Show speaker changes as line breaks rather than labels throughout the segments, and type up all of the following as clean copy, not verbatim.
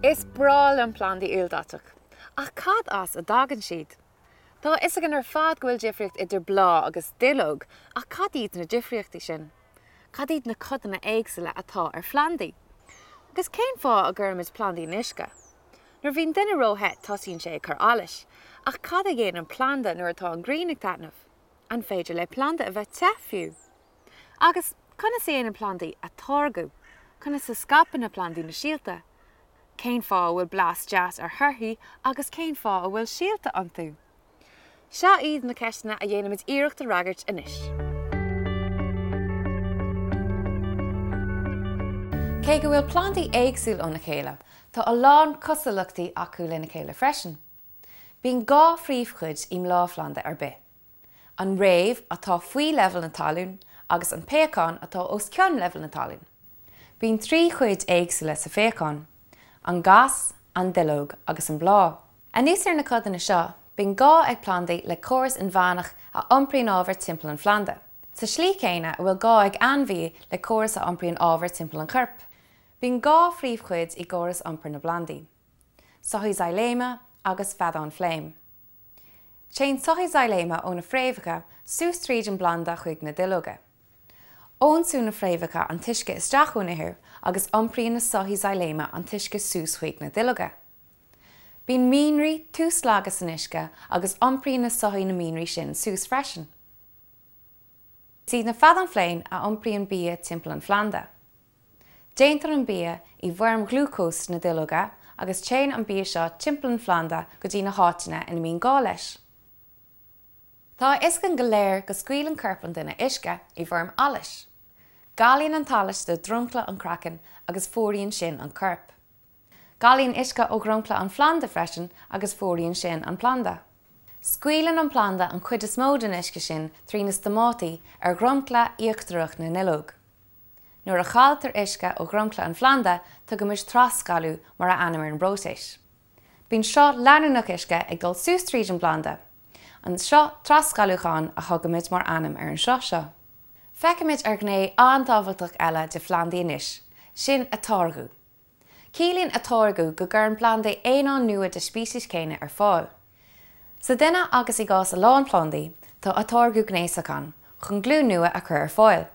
Is breá liom plandaí ildaiteach. Ach cad as a dtagann siad? Tá a fhios againn ar fad go bhfuil difríocht idir bláth agus duilleog, ach cad iad na difríochtaí sin? Cad iad na codanna éagsúla atá ar phlandaí? Agus cén fáth a gcuirimid plandaí in uisce? Nuair a bhíonn duine ró-the tosaíonn sé ag cur allais, ach cad a dhéanann planda nuair atá an ghrian ag taitneamh? An féidir le planda a bheith te, fiú? Agus conas a dhéanann plandaí atáirgeadh? Conas a scaipeann na plandaí na síolta? Cén fáth a bhfuil blas deas ar thorthaí agus cén fáth a bhfuil síolta iontu? Seo iad na ceisteanna a dhéanfaimid iarracht a fhreagairt anois. Cé go bhfuil plandaí éagsúil óna chéile, tá a lán cosúlachtaí acu lena chéile freisin. Bíonn 2 phríomhchuid i mbláthphlanda ar bith. An fhréamh atá faoi leibhéal na talún agus an péacán atá os cionn leibhéal na talún. Bíonn 3 chuid éagsúla sa phéacán, an gas, an duilleog agus an bláth. Anuas ar na codanna seo, bíonn gá ag plandaí le córas inmheánach a iompraíonn ábhar timpeall an phlanda, sa slí chéanna a bhfuil gá ag ainmhí le córas a iompraíonn ábhar timpeall an choirp. Bíonn 2 phríomhchuid i gcóras iompair na bplandaí, soithí xyléime agus feadáin fléim. Téann soithí xyléime ó na fréamhacha suas tríd an bplanda chuig na duilleoga. Ionsúnn na fréamhacha an t-uisce isteach ón ithir agus iompraíonn na soithí xyléime an t-uisce suas chuig na duilleoga. Bíonn mianraí tuaslagtha san uisce agus iompraíonn na soithí na mianraí sin suas freisin. Is iad na feadáin fléim a iompraíonn bia timpeall an phlanda. Déantar an bia i bhfoirm ghlúcóis sna duilleoga agus téann an bia seo timpeall an phlanda go dtí na háiteanna ina mbíonn gá leis. Tá a fhios againn go léir go scaoileann corp an duine uisce i bhfoirm allais. Galaíonn an t-allas de dhromchla an chraicinn agus fuaraíonn sin an corp. Galaíonn uisce ó dhromchla an phlanda freisin agus fuaraíonn sin an planda. Scaoileann an planda an chuid is mó den uisce sin trí na stomátaí ar dhromchla íochtarach na nduilleog. Nuair a chailltear uisce ó dhromchla an phlanda, tugaimid trasghalú mar a ainm ar an bpróiseas. Bíonn sruth leanúnach uisce ag dul suas tríd an bplanda. An sruth trasghalúcháin a thugaimid mar ainm ar an sruth seo. Feicfimid ar ghné an-tábhachtach eile de phlandaí anois, sin atáirgeadh. Ciallaíonn atáirgeadh go gcuireann plandaí aonáin nua de speiceas céanna ar fáil. Sa duine agus i gcás a lán plandaí, tá atáirgeadh gnéasach ann chun glúin nua a chur ar fáil.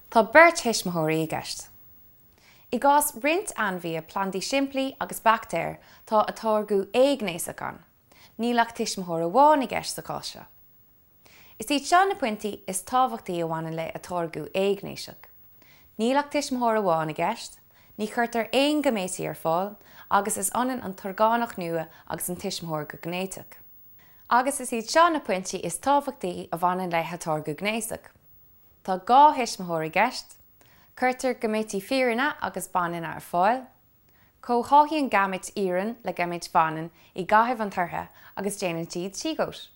Tá beirt thuismitheoirí i gceist. I gcás roinnt ainmhithe, plandaí simplí agus baictéir, tá atáirgeadh éighnéasach ann. Níl ach tuismitheoir amháin i gceist sa chás seo. Is iad seo na pointí is tábhachtaí a bhaineann le atáirgeadh éighnéasach. Níl ach tuismitheoir amháin i gceist, ní chuirtear aon ghaiméití ar fáil agus is ionann an t-orgánach nua agus an tuismitheoir go gnéiteach. Agus is iad seo na pointí is tábhachtaí a bhaineann le hatáirgeadh gnéasach. Tá 2 thuismitheoir i gceist, cuirtear gaiméití fireanna agus baineanna ar fáil, comhtháthaíonn gaiméit fhireann le gaiméit bhaineann i gcaitheamh an tortha agus déanann siad síogóit.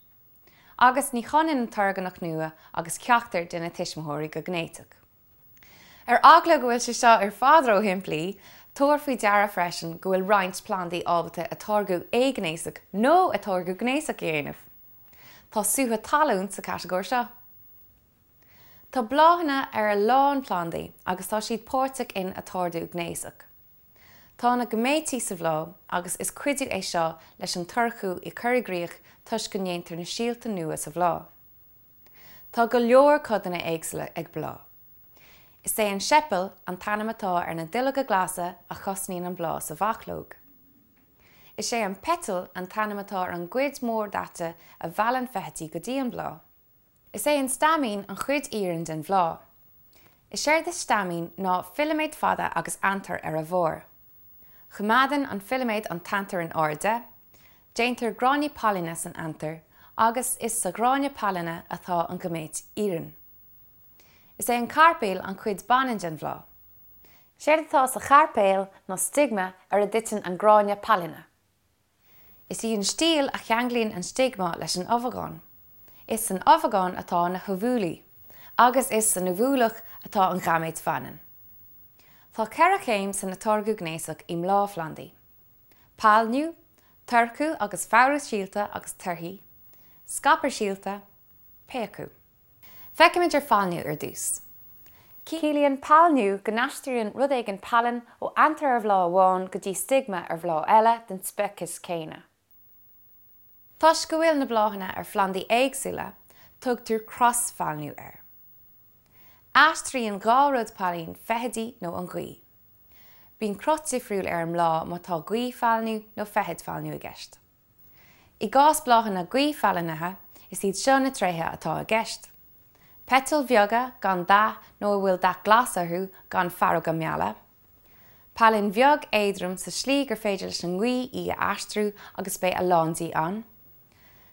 Agus ní hionann an t-orgánach nua agus ceachtar de na tuismitheoirí go gnéiteach. Ar eagla go bhfuil sé seo ar fad ró-shimplí, tabhair faoi deara freisin go bhfuil roinnt plandaí ábalta atáirgeadh éighnéasach nó atáirgeadh gnéasach a dhéanamh. Tá sútha talún sa chatagóir seo. Tá bláthanna ar a lán plandaí agus tá siad páirteach in atáirgeadh gnéasach. Tá na gaiméití sa bhláth agus is cuidiú é seo leis an toirchiú a chur i gcrích toisc go ndéantar na síolta nua sa bhláth. Tá go leor codanna éagsúla ag bláth. Is é an seipeal an t-ainm atá ar na duilleoga glasa a chosnaíonn an bláth sa bhachlóg. Is é an peiteal an t-ainm atá ar an gcuid mhór daite a mheallann feithidí go dtí an bláth. Is é an staimín an chuid fhireann den bhláth. Is éard is staimín ná filiméad fada agus antar ar a bharr. Coimeádann an filiméad an t-antar in airde, déantar gráinní pailine san antar agus is sa ghráinne pailine atá an ghaiméit fhireann. Is é an cairpéal an chuid baineann den bhláth. Is éard atá sa chairpéal ná stigma ar a dtiteann an gráinne pailine. Is í an stíl a cheanglaíonn an stigma leis an ubhagán. Is san ubhagán atá na hubhúlaí, agus is san ubhúlach atá an ghaiméit bhaineann. Tá 4 chéim san atáirgeadh gnéasach i mbláthphlandaí, pailniú, toirchiú agus foghrú síolta agus torthaí, scaipeadh síolta, péacadh. Feicfimid ar phailniú ar dtús. Ciallaíonn pailniú go n-aistríonn rud éigin pailin ó antair ar bhláth amháin go dtí stigma ar bhláth eile den speiceas céanna. Toisc go bhfuil na bláthanna ar phlandaí éagsúla, tugtar crosPhailniú air. Aistríonn 2 rud pailin, feithidí nó an ghaoth. Bíonn cruth difriúil ar an mbláth má tá gaothphailniú nó feithidphailniú i gceist. I gcás bláthanna gaothphailnithe, is iad seo na tréithe atá i gceist. Peitil bheaga gan dath nó a bhfuil dath glas orthu gan faireoga meala. Pailin bheag éadrom sa slí gur féidir leis an ngaoth í a aistriú agus beidh a lán di ann.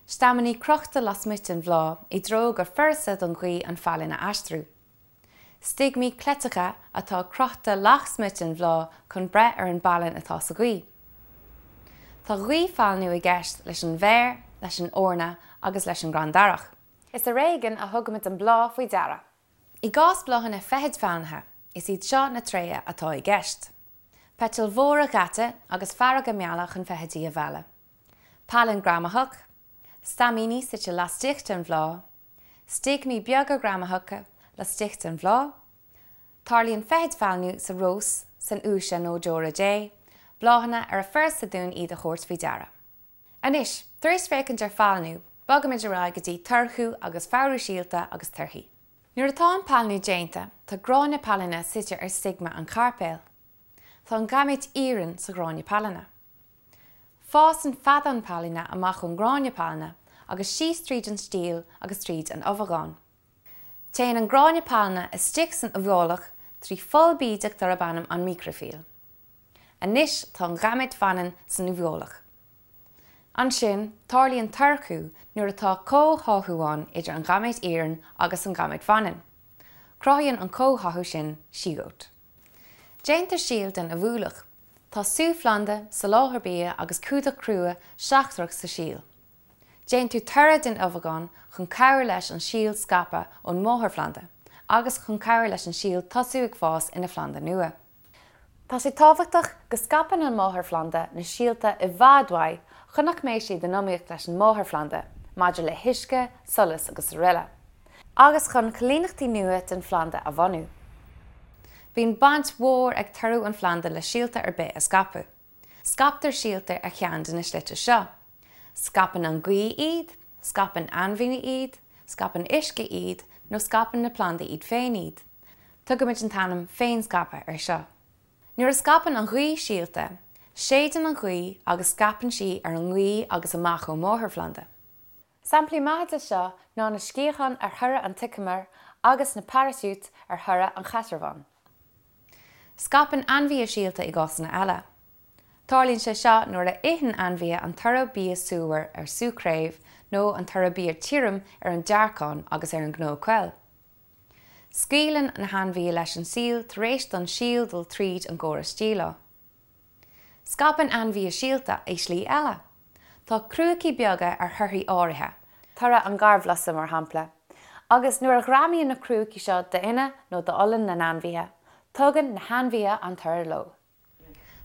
Staiminí crochta lasmuigh den bhláth i dtreo gur furasta don ghaoth an phailin a aistriú. Stigmí cleiteacha atá crochta lasmuigh den bhláth chun breith ar an bpailin atá sa ghaoth. Tá gaothphailniú i gceist leis an bhféar, leis an eorna agus leis an gcrann darach. Is ar éigean a thugaimid an bláth faoi deara. I gcás bláthanna feithidphailnithe, is iad seo na tréithe atá i gceist. Peitil mhóra dhaite agus faireoga meala chun feithidí a mhealladh. Pailin ghreamaitheach. Staimíní suite laistigh den bhláth. Stigmí beaga greamaitheacha laistigh den bhláth. Tarlaíonn feithidphailniú sa rós, san fhiúise nó deora Dé, bláthanna ar furasta dúinn iad a thabhairt faoi deara. Anois, tar éis féachaint ar phailniú, bogaimid ar aghaidh go dtí toirchiú agus foghrú síolta agus torthaí. Nuair atá an pailniú déanta, tá gráinne pailine suite ar stigma an chairpéil. Tá an gaiméit fhireann sa ghráinne pailine. Fásann feadán pailine amach ón ngráinne pailine agus síos tríd an stíl agus tríd an ubhagán. Téann an gráinne pailine istigh san ubhálach trí pholl bídeach darb ainm an microphile. Anois tá an ghaiméit bhaineann san ubhálach. Ansin, tarlaíonn toirchiú nuair atá comhtháthú ann idir an ghaiméit fhireann agus an ghaiméit bhaineann. Cruthaíonn an comhtháthú sin siogót. Déantar síol den ubhálach. Tá sú phlanda, soláthar bia agus cumhdach crua seachtrach sa síol. Déantar toradh den ubhagán chun cabhrú leis an síol scaipeadh ón máthairphlanda agus chun cabhrú leis an síol tosú ag fás ina phlanda nua. Tá sé tábhachtach go scaipeann an máthairphlanda na síolta i bhfad uaidh chun nach mbeidh siad in iomaíocht leis an máthairphlanda maidir le huisce, solas agus araile, agus chun coilíneachtaí nua den phlanda a bhunú. Bíonn baint mhór ag toradh an phlanda le síolta ar bith a scaipeadh. Scaiptear síolta ar cheann de na slite seo. Scaipeann an ghaoth iad, scaipeann ainmhithe iad, scaipeann uisce iad nó scaipeann na plandaí iad féin iad. Tugaimid an t-ainm féinscaipeadh air seo. Nuair a scaipeann an ghaoth síolta, séideann an ghaoth agus scaipeann sí ar an ngaoth agus amach ón máthairphlanda. Samplaí maithe de seo ná na sciatháin ar thoradh an tseiceamair agus na paraisiúit ar thoradh an chaisearbháin. Scaipeann ainmhithe síolta i gcásanna eile. Tarlaíonn sé seo nuair a itheann ainmhithe an toradh bia súmhar ar sú craobh nó an toradh bia tirim ar an dearcán agus ar an gcnó coill. Scaoileann na hainmhithe leis an síol tar éis don síol dul tríd an gcóras díleá. Scaipeann ainmhithe síolta i slí eile. Tá crúicí beaga ar thorthaí áirithe, toradh an gharbhlusa mar shampla, agus nuair a ghreamaíonn na crúicí seo d'fhionnadh nó d'olann na n-ainmhithe, tugann na hainmhithe an toradh leo.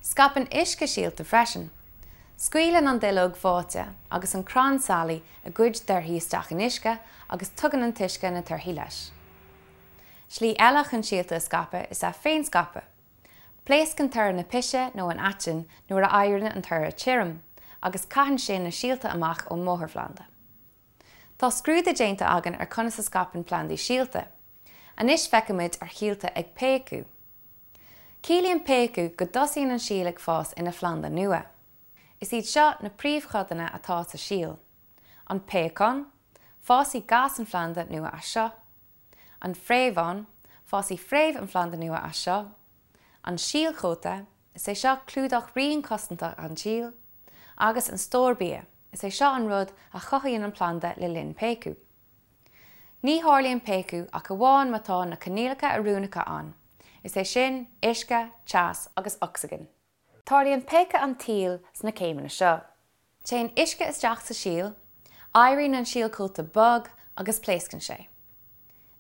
Scaipeann uisce síolta freisin. Scaoileann an duilleog bháite agus an crann sailigh a gcuid torthaí isteach in uisce agus tugann an t-uisce na torthaí leis. Slí eile chun síolta a scaipeadh is ea féinscaipeadh. Pléascann toradh na pise nó an aitinn nuair a éiríonn an toradh tirim, agus caitheann sin na síolta amach ón máthairphlanda. Tá scrúdú déanta againn ar conas a scaipeann plandaí síolta. Anois feicfimid ar shíolta ag péacadh. Ciallaíonn péacadh go dtosaíonn an síol ag fás ina phlanda nua. Is iad seo na príomhchodanna atá sa síol. An péacán, fásfaidh gas an phlanda nua as seo. An fréamhán, fásfaidh fréamh an phlanda nua as seo. An síolchóta, is é seo clúdach righin cosantach an tsíl. Agus an stór bia, is é seo an rud a chothaíonn an planda le linn péacadh. Ní tharlaíonn péacadh ach amháin má tá na coinníollacha oiriúnacha ann, is é sin, uisce, teas agus ocsaigin. Tarlaíonn péacadh an tsíl sna céimeanna seo. Téann uisce isteach sa síol, éiríonn an síolchóta bog agus pléascann sé.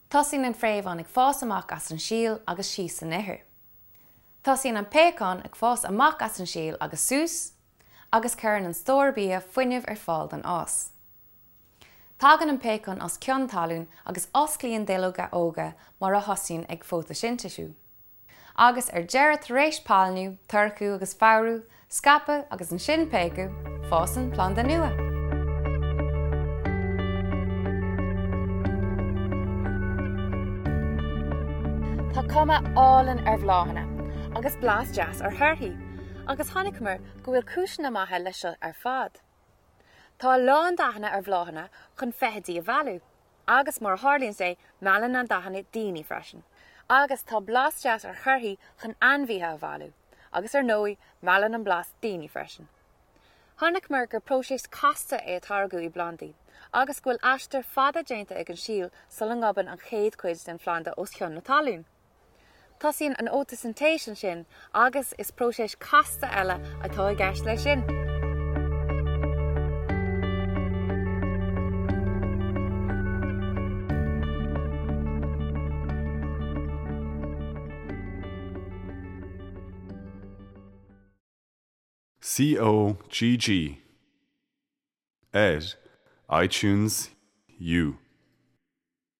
Tosaíonn an fréamhán ag fás amach as an síol agus síos san ithir. Tosaíonn an péacán ag fás amach as an síol agus suas, agus cuireann an stór bia fuinneamh ar fáil don fhás. Tagann an péacán os cionn talún agus osclaíonn duilleoga óga mar a thosaíonn ag fótaisintéisiú. Agus ar deireadh tar éis pailniú, toirchiú agus foghrú, scaipeadh agus ansin péacadh, fásann planda nua. Tá cuma álainn ar bhláthanna agus blas deas ar thorthaí, agus chonaiceamar go bhfuil cúiseanna maithe leis seo ar fad. Tá a lán dathanna ar bhláthanna chun feithidí a mhealladh. Agus mar a tharlaíonn sé, meallann na dathanna daoine freisin. Agus tá blas deas ar thorthaí chun ainmhithe a mhealladh. Agus ar ndóigh, meallann an blas daoine freisin. Chonaiceamar gur próiseas casta é atáirgeadh i bplandaí, agus go bhfuil aistear fada déanta ag an síol sula ngobann an chéad chuid den phlanda os cionn na talún. Tosaíonn an fhótaisintéis ansin agus is próiseas casta eile atá i gceist leis sin.
COGG ar iTunes U.